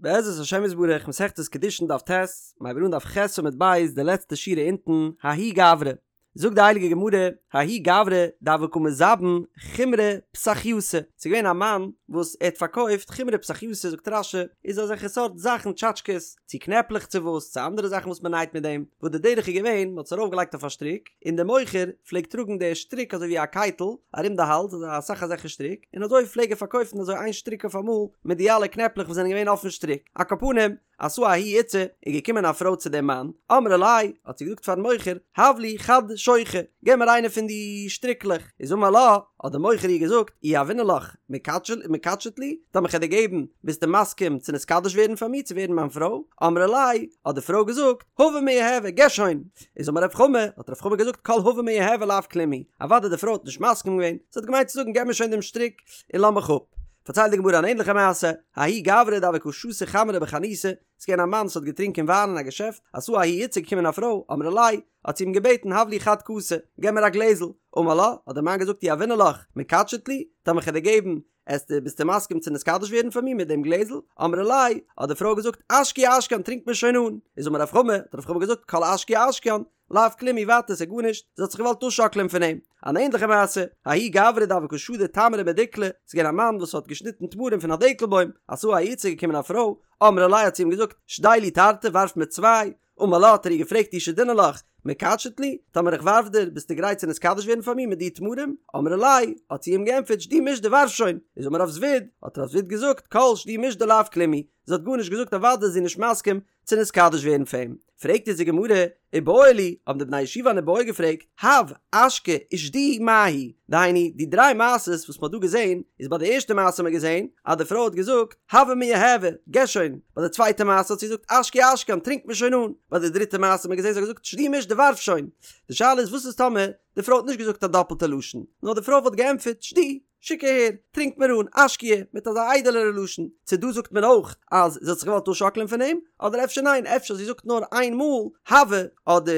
בעזרת השם יתברך מסכת קידושין דף ט', מ'הייבט אן דף ח' עמוד ב' די לעצטע שורה אונטן, ההוא גברא, זאגט די הייליגע גמרא, ההוא גברא דהוה קא מזבין חומרי פסחייתא, ס'איז געווען א מאן וואס ער האט פארקויפט חומרי פסחייתא זאגט רש"י, איז אזעלכע סארט זאכן טשאטשקעס, צו קנעפלעך צו וואס, צו אנדערע זאכן וואס מ'נייט מיט דעם, וואס די דרך איז געווען, מ'האט עס ארויפגעלייגט אויף א שטריק, און דער מוכר פלעגט טראגן די שטריק אזוי ווי א קייטל ארום די האלז, אזוי אסאך אזעלכע שטריק, און אזוי פלעג ער פארקויפן אזוי איין שטריק אויף אמאל מיט די אלע קנעפלעך וואס זענען געווען אויפן שטריק. על כל פנים, אתא ההיא איתתא, איז געקומען א פרוי צו דעם מאן, אמרה ליה, האט זי געזאגט פארן מוכר, הב לי חד שוכא, געב מיר איינע פון די שטריקלעך, איז אמר לה, האט דער מוכר איר געזאגט, אי יהבינא לך, מקדשת לי, טאמער כ'על דיר געבן, ביסטו מסכים צו נתקדש ווערן פאר מיר, צו ווערן מיין פרוי? אמרה ליה, האט די פרוי געזאגט, הבה מיהבה, געב שוין! איז אמר רב חמא, האט רב חמא געזאגט, כל הבה מיהבה לאו כלום הוא, אוודאי די פרוי האט נישט מסכים געווען, זי האט געמיינט צו זאגן געב מיר שוין דעם שטריק און לאז מיך אפ. פארציילט די גמרא אן ענליכע מעשה, ההוא גברא דהוה קא שתי חמרא בחנותא, ס'איז געווען א מאן וואס האט געטרינקען וויין אין א געשעפט, אתא ההיא איתתא געקומען א פרוי, אמרה ליה, האט זי אים געבעטן הב לי חד כסא, געב מיר א גלעזל, אמר לה, האט דער מאן געזאגט אי יהבינא לך, מקדשת לי, טאמער כ'על דיר געבן, עסטו, ביסטו מסכים צו נתקדש ווערן פאר מיר מיט דעם גלעזל? אמרה ליה, האט די פרוי געזאגט, אשקויי אשקיין, טרינק מיר שוין אן. איז אמר רב חמא, האט רב חמא געזאגט, כל אשקויי אשקיין, לאו כלום הוא, ווייטער, ס'איז גארנישט, זי האט זיך געוואלט אפשאקלען פון אים. אן ענדליכע מעשה, ההוא גברא דהוה קא שדי תמרי מדיקלא, ס'איז געווען א מאן וואס האט געשניטן תמרים פון א דעקל בוים, אתא ההיא איתתא געקומען א פרוי, אמרה ליה האט זי אים געזאגט, שדי לי תרתי, ווארף מיר צוויי, אמר לה האט ער איר געפרעגט אי שדינא לך, מקדשת לי? טאמער איך ווארף דיר, ביסטו גרייט צו נתקדש ווערן פאר מיר מיט די תמרים? אמרה ליה, האט זי אים געענטפערט שדי מישדי ווארף שוין! איז אמר רב זביד, האט רב זביד געזאגט, כל שדי מישדי לאו כלום הוא, זי האט גארנישט געזאגט אוודאי איז זי נישט מסכים צו נתקדש ווערן פאר אים. פרעגט אונז די גמרא, איבעיא להו, האבן די בני ישיבה אן איבעיא געפרעגט, הב, אשקי, ושדי, מהו? דהיינו, די דריי מעשות וואס מ'האט דא געזען, איז ביי די ערשטע מעשה האט מען געזען אז די פרוי האט געזאגט, הבה מיהבה, געב שוין, ביי די צווייטע מעשה האט זי געזאגט אשקויי אשקיין, טרינק מיר שוין אן, ביי די דריטע מעשה האט מען געזען זי האט געזאגט שדי מישדי ווארף שוין. די שאלה איז וואס איז טאמער די פרוי האט נישט געזאגט א דאפלטע לשון, נאר די פרוי וואלט געענטפערט שדי, שיק אהער, טרינק מיר אן, אשקויי, מיט אזא איידעלערע לשון, צו דא זאגט מען אויך אז זי האט זיך געוואלט אפשאקלען פון אים, אדער אפשר ניין, אפשר זי זאגט נאר איין מאל הבה, אדער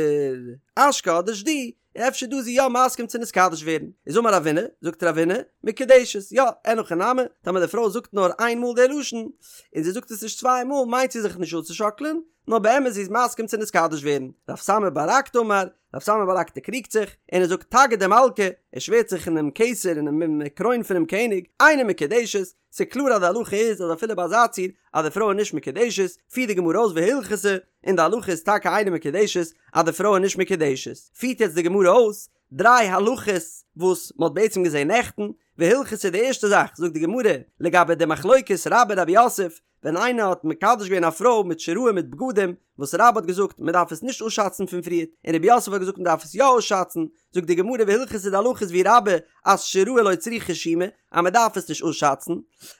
אשקי אדער שדי, און אפשר דא איז זי יא מסכים צו נתקדש ווערן, איז אמר רבינא, זאגט רבינא, מקודשת, יא, אין הכי נמי, טאמער די פרוי זאגט נאר איין מאל די לשון, און זי זאגט עס נישט צוויי מאל, מיינט זי זיך נישט אפצושאקלען, נאר באמת זי איז מסכים צו נתקדש ווערן. רב סמא בר רקתא אמר, רב סמא בר רקתא קריגט זיך, און ער זאגט תגא דמלכא, ער שווערט זיך אינעם כתר אינעם קרוין פונעם קעניג, אינה מקודשת, ס'איז קלאר אז די הלכה איז אז אפילו ביי אזא ציור אז די פרוי איז נישט מקודשת, פירט די גמרא אויס והלכתא, און די הלכה איז טאקע אינה מקודשת אז די פרוי איז נישט מקודשת. פירט יעצט די גמרא אויס דריי הלכות וואס מ'האט בעצם געזען נעכטן, והלכתא די ערשטע זאך זאגט די גמרא לגבי די מחלוקת רבה רב יוסף, ווען איינער האט מקדש געווען א פרוי מיט שיראי מיט בגדים, וואס רבה האט געזאגט מען דארף עס נישט אפשאצן פון פריערט, און רב יוסף האט געזאגט מען דארף עס יא אפשאצן, זאגט די גמרא והלכתא די הלכה איז ווי רבה אז שיראי לא צריכי שומא אז מען דארף עס נישט אפשאצן,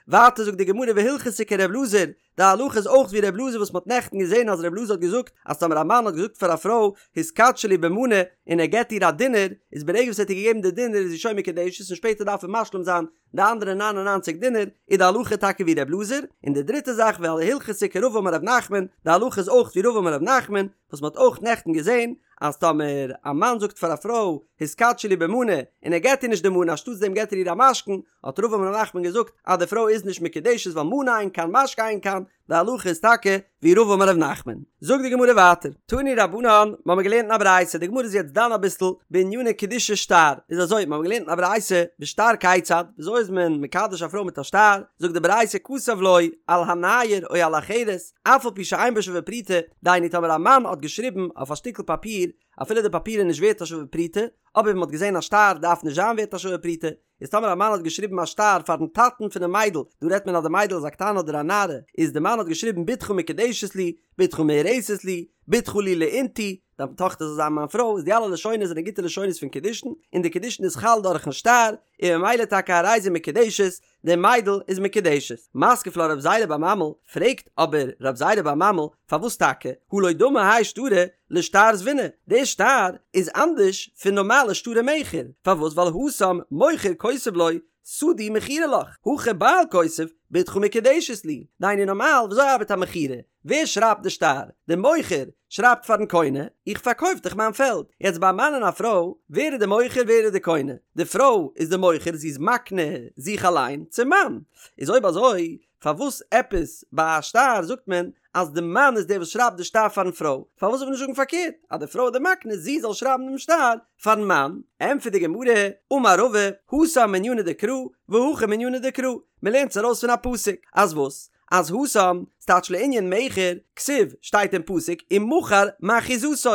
ווייטער זאגט די גמרא והלכתא כר' אלעזר, די הלכה איז אויך ווי ר' אלעזר וואס מען האט נעכטן געזען אז ר' אלעזר האט געזאגט אז טאמער א מאן האט געזאגט פאר א פרוי התקדשי לי במנה און ער געבט איר א דינר, איז ברגע וואס ער האט איר געגעבן די דינר איז זי שוין מקודשת און שפעטער דארף ער משלים זיין די אנדערע ניין און ניינציג דינר איז די הלכה טאקע ווי ר' אלעזר, און די דריטע זאך והלכתא כרבא אמר ר' נחמן, די הלכה איז אויך ווי רבא אמר ר' נחמן, וואס מ'האט אויך נעכטן געזען, אז טאמער א מאן זאגט פאר א פרוי התקדשי לי במנה, און ער געט איר נישט די מנה אנשטאטס דעם געט ער איר א משכון, האט רבא אמר ר' נחמן געזאגט אז די פרוי איז נישט מקודשת ווייל מנה אין כאן משכון אין כאן, די הלכה איז טאקע ווי רבא אמר ר' נחמן. זאגט די גמרא ווייטער, תנו רבנן, מ'האמיר געלערנט אין א ברייתא, די גמרא איז יעצט דן אביסל בעניני קידושי שטר, איז אזוי, מ'האמיר געלערנט אין א ברייתא, בשטר כיצד, וויאזוי איז מען מקדש א פרוי מיט א שטר, זאגט די ברייתא כתב לו על הנייר או על החרס, אף על פי שאין בו שווה פרוטה, דהיינו טאמער א מאן האט געשריבן אויף א שטיקל פאפיר, אפילו די פאפיר איז נישט ווערט א שווה פרוטה, אבער ווי מ'האט געזען א שטר דארף נישט זיין ווערט א שווה פרוטה, איז טאמער א מאן האט געשריבן א שטר פארן טאטן פונעם מיידל, דא רעדט מען אז די מיידל איז א קטנה אדער א נערה, איז די מאן האט געשריבן בתך מקודשת לי, בתך מאורסת לי, בתך לי לאינתו, דיין טאכטער זאל זיין מיין פרוי, איז די אלע לשונות זענען גוטע לשונות פון קידושין, און די קידושין איז חל דורכן שטר, און ממילא טאקע הרי זו מקודשת, די מיידל איז מקודשת. מתקיף לה רב זירא בר ממל, פרעגט אבער רב זירא בר ממל, פארוואס טאקע, הא לא דמי האי שטרא לשטר זביני, די שטר איז אנדערש פון נארמאלע שטרי מכר, פארוואס ווייל התם מוכר כותב לו שדי מכורה לך, הכא בעל כותב בתך מקודשת לי, דהיינו נארמאל וויאזוי ארבעט א מכירה? ווער שרייבט די שטר? די מוכר שרייבט פארן קונה, איך פארקויף דיך מיין פעלד. יעצט ביי א מאן און א פרוי, ווער איז די מוכר ווער איז די קונה? די פרוי איז די מוכר זי איז מקנה זיך אליין צום מאן. איז אויב אזוי פארוואס עפעס ביי א שטר זאגט מען אז די מאן איז דער וואס שרייבט די שטר פארן פרוי? פארוואס זאל מען נישט זאגן פארקערט אז די פרוי איז די מקנה זי זאל שרייבן דעם שטר פארן מאן? ענטפערט די גמרא, אמר רבא, התם מענינא דקרא והכא מענינא דקרא, מען לערנט עס ארויס פון א פסוק, אז וואס? אז התם, ס'טייטש לענין מכר, כתיב, שטייט אין פסוק, ומכר מאחוזתו,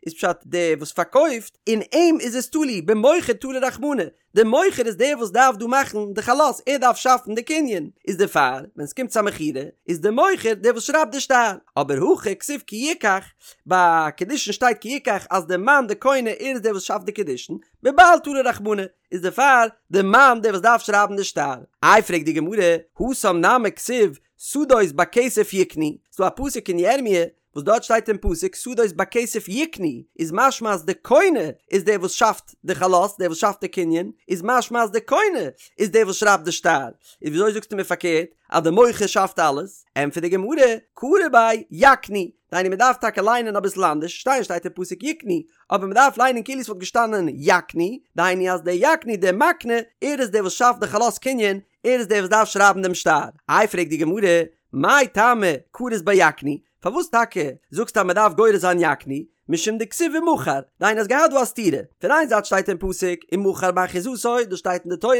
איז פשט דער וואס פארקויפט, אין אים איז עס תלוי, במוכר תלה רחמנא, דער מוכר איז דער וואס דארף דא מאכן די חלות, ער דארף שאפן די קנין, איז דערפאר ווען ס'קומט צו א מכירה איז דער מוכר דער וואס שרייבט די שטר, אבער הכא כתיב כי יקח, ביי קידושין שטייט כי יקח אז דער מאן דער קונה ער איז דער וואס שאפט די קידושין, בבעל תלה רחמנא, איז דערפאר דער מאן דער וואס דארף שרייבן די שטר. איי פרעגט די גמרא, התם נמי כתיב שדות בכסף יקנו, ס'דא א פסוק אין ירמיה וואס דארט שטייט אין פסוק שדות בכסף יקנו, איז משמע אז די קונה איז דער וואס שאפט די חלות, דער וואס שאפט די קנין, איז משמע אז די קונה איז דער וואס שרייבט די שטר, איז וויאזוי זאגסטו מיר פארקערט אז די מוכר שאפט אלעס? ענטפערט די גמרא, קרי ביה יקנו, דהיינו מען דארף טאקע ליינען אביסל אנדערש, שטיין שטייט אין פסוק יקנו, אבער מען דארף ליינען כאילו עס וואלט געשטאנען יקנו, דהיינו אז דער יקנו דער מקנה, ער איז דער וואס שאפט די חלות קנין, ער איז דער וואס דארף שרייבן דעם שטר. איי פרעגט די גמרא, מאי טעמא קרית ביה יקנו, פארוואס טאקע זאגסטו אז מען דארף גורס זיין יקנו, משום דכתיב ומכר, דהיינו האסט געהאט דא א סתירה, פון איין זייט שטייט אין פסוק ומכר מאחוזתו, דאס שטייט אין די תורה,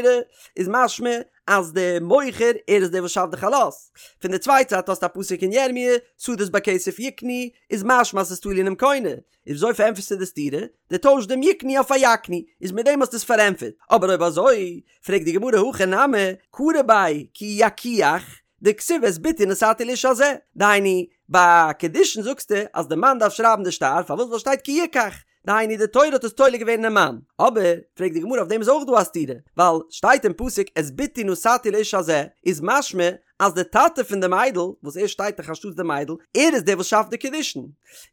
איז משמע אז דער מוכר ער איז דער וואס שאפט די חלות, פון די צווייטע זייט האסטו א פסוק אין ירמי' שדות בכסף יקנו, איז משמע אז ס'איז תלוי אינעם קונה, איז וויאזוי פארענטפערסטו די סתירה? דו טוישסט דעם יקנו אויף א יקנו, איז מיט דעם האסטו עס פארענטפערט, אבער אויב אזוי, פרעגט די גמרא הכא נמי, קרי ביה כי יקוח, דכתיב את בתי נתתי לאיש הזה, דהיינו, ביי קידושין זאגסטו אז די מאן דארף שרייבן די שטר, פארוואס ווייל שטייט כי יקח, דהיינו די תורה האט עס תולה געווען אינעם מאן, אבער, פרעגט די גמרא אויף דעם איז אויך דא א סתירה, ווייל שטייט אין פסוק את בתי נתתי לאיש הזה, איז משמע אז די טאטע פון די מיידל, וואס ער שטייט דאך אנשטאטס די מיידל, ער איז דער וואס שאפט די קידושין.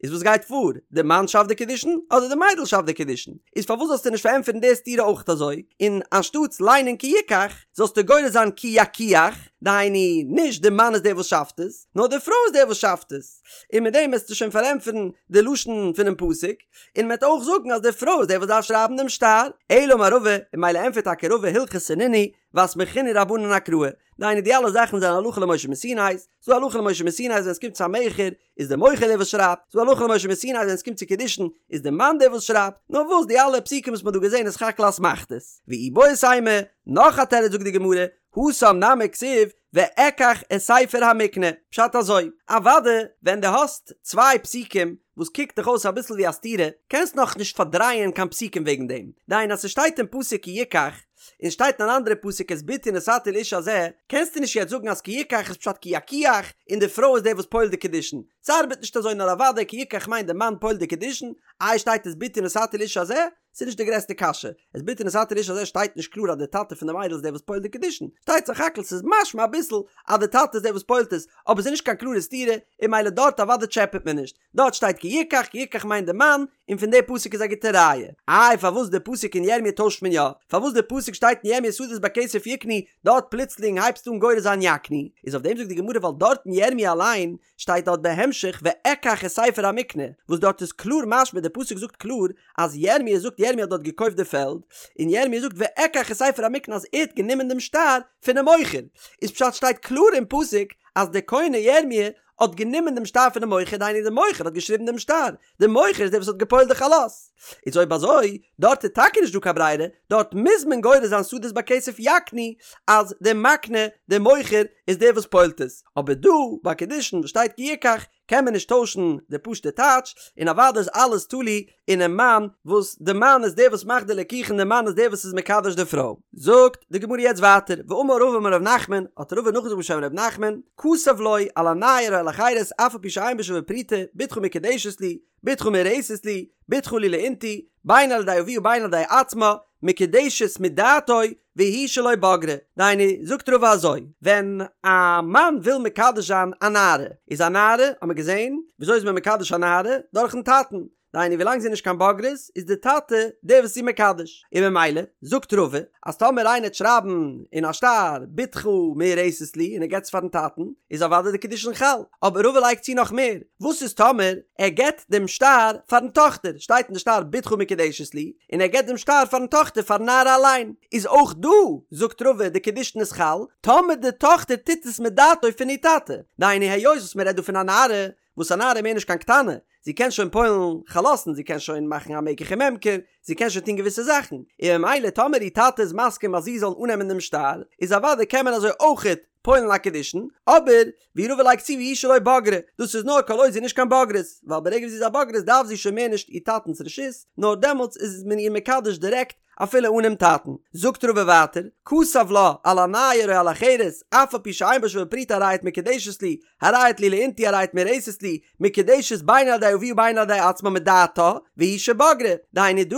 איז וואס גייט פאר? די מאן שאפט די קידושין אדער די מיידל שאפט די קידושין? איז פארוואס זאלסטו נישט פארענטפערן די סתירה אויך אזוי, און אנשטאטס ליינען כי יקח, זאלסטו גורס זיין כי יקוח, דהיינו, נישט די מאן איז דער וואס שאפט עס, נאר די פרוי איז דער וואס שאפט עס. און מיט דעם וועסטו שוין פארענטפערן די לשון פונעם פסוק, און מען וועט אויך זאגן אז די פרוי איז דער וואס דארף שרייבן דעם שטר. אלא אמר רבא, און ממילא ענטפערט טאקע רבא הלכתא נינהו, ואסמכינהו רבנן אקראי, דהיינו די אלע זאכן זענען הלכה למשה מסיני, ס'דא הלכה למשה מסיני אז ווען עס קומט צו א מכר איז די מוכר דער וואס שרייבט, ס'דא הלכה למשה מסיני אז ווען עס קומט צו קידושין איז די מאן דער וואס שרייבט, נאר וואס די אלע פסוקים וואס מ'האט דא געזען איז סך הכל אסמכתות. ואיבעית אימא, נאך א תירוץ זאגט די גמרא, התם נמי כתיב ואקח את ספר המקנה, פשט אזוי, אוואדע ווען דו האסט צוויי פסוקים וואס קוקט דיך אויס אביסל ווי א סתירה, קענסט נאך נישט פארדרייען קיין פסוקים וועגן דעם, דהיינו אז ס'שטייט אין פסוק כי יקח, און שטייט אין אן אנדערע פסוק את בתי נתתי לאיש הזה, קענסטו נישט יעצט זאגן אז כי יקח איז פשט כי יקוח און די פרוי איז דער וואס פועל'ט די קידושין, ס'ארבעט נישט אזוי נאר אוודאי כי יקח מיינט די מאן פועל'ט די קידושין, איי שטייט את בתי נתתי לאיש הזה? ס'איז נישט די גרעסטע קשיא, את בתי נתתי לאיש הזה שטייט נישט קלאר אז די טאטע פון די מיידל איז דער וואס פועל'ט די קידושין, שטייט סך הכל ס'איז משמע אביסל אז די טאטע איז דער וואס פועל'ט עס, אבער ס'איז נישט קיין קלארע סתירה, און ממילא דארט אוודאי טשעפעט מען נישט. דארט שטייט כי יקח, כי יקח מיינט די מאן, און פון די פסוק איז א גוטע ראיה. איי פארוואס די פסוק אין ירמיה טוישט מען יא? פארוואס די פסוק שטייט אין ירמיה שדות בכסף יקנו, דארט פלוצלינג הייבסטו אן גורס זיין יקנו? איז אויף דעם זאגט די גמרא ווייל דארט אין ירמיה אליין שטייט דארט בהמשך ואקח את ספר המקנה, וואס דארט איז קלאר משמע די פסוק זאגט קלאר אז ירמיה זאגט ירמיה האט דארט געקויפט די פעלד, און ירמיה זאגט ואקח את ספר המקנה אז ער האט גענומען דעם שטר פונעם מוכר, איז פשט שטייט קלאר אין פסוק אז דער קונה ירמיה האט גענומען דעם שטר פונעם מוכר, דהיינו דער מוכר האט געשריבן דעם שטר, דער מוכר איז דער וואס האט גע'פועל'ט די חלות. איז אויב אזוי, דארט איז טאקע נישט דא קיין ברירה, דארט מוז מען גורס זיין שדות בכסף יקנו, אז דער מקנה, דער מוכר, איז דער וואס פועל'ט עס. אבער דא, ביי קידושין וואס שטייט כי יקח, קען מען נישט טוישן די פשוט'ע טייטש, און אוודאי איז אלעס תלוי אינעם מאן, וואס די מאן איז דער וואס מאכט די לקיחה און די מאן איז דער וואס איז מקדש די פרוי. זאגט די גמרא יעצט ווייטער, ואמר רבא אמר ר' נחמן, האט רבא נאכגעזאגט בשם ר' נחמן, כתב לו על הנייר או על החרס אף על פי שאין בו שווה פרוטה, בתך מקודשת לי, בתך מאורסת לי, בתך לי לאינתו, בין על ידי אביה ובין על ידי עצמה, מקודשת מדעתו, והוא שלא בגרה. דהיינו, זאגט רבא אזוי, ווען א מאן וויל מקדש זיין א נערה, איז א נערה, האט מען געזען, וויאזוי איז מען מקדש א נערה? דורכן טאטן. דהיינו ווילאנג זי איז נישט קיין בוגרת איז די טאטע דער וואס איז איר מקדש, און ממילא זאגט רבא אז טאמער איינער וועט שרייבן אין א שטר בתך מאורסת לי און ער געבט עס פארן טאטן איז אוודאי די קידושין חל, אבער רבא לייגט צו נאך מער, וואס איז טאמער ער געבט דעם שטר פארן טאכטער, שטייט אין די שטר בתך מקודשת לי, און ער געבט דעם שטר פארן טאכטער פארן נערה אליין, איז אויך דא זאגט רבא די קידושין איז חל, טאמער די טאכטער טוט עס מדעתו פון איר טאטע, דהיינו היות וואס מען רעדט דא פון א נערה, וואס א נערה איז מער נישט קיין קטנה, זי קען שוין פועל'ן חלות'ן, זי קען שוין מאכן א מקח וממכר, זי קען שוין טון געוויסע זאכן, און ממילא טאמער איר טאטע איז מסכים אז זי זאל אננעמען דעם שטר, איז אוודאי קען מען אזוי אויכעט פועל'ן א קידושין, אבער ווי רבא לייגט צו והוא שלא בגרה, דאס איז נאר כל עוד זי איז נישט קיין בוגרת, ווייל ברגע וואס זי איז א בוגרת דארף זי שוין מער נישט איר טאטנ'ס רשות, נאר דעמאלטס איז מען איר מקדש דירעקט אפילו אנעם טאטן. זאגט רבא ווייטער, כתב לה על הנייר או על החרס, אף על פי שאין בה שווה פרוטה הרי את מקודשת לי, הרי את לי לאינתו הרי את מאורסת לי, מקודשת בין על ידי אביה ובין על ידי עצמה מדעתה, והוא שבגרה, דהיינו דא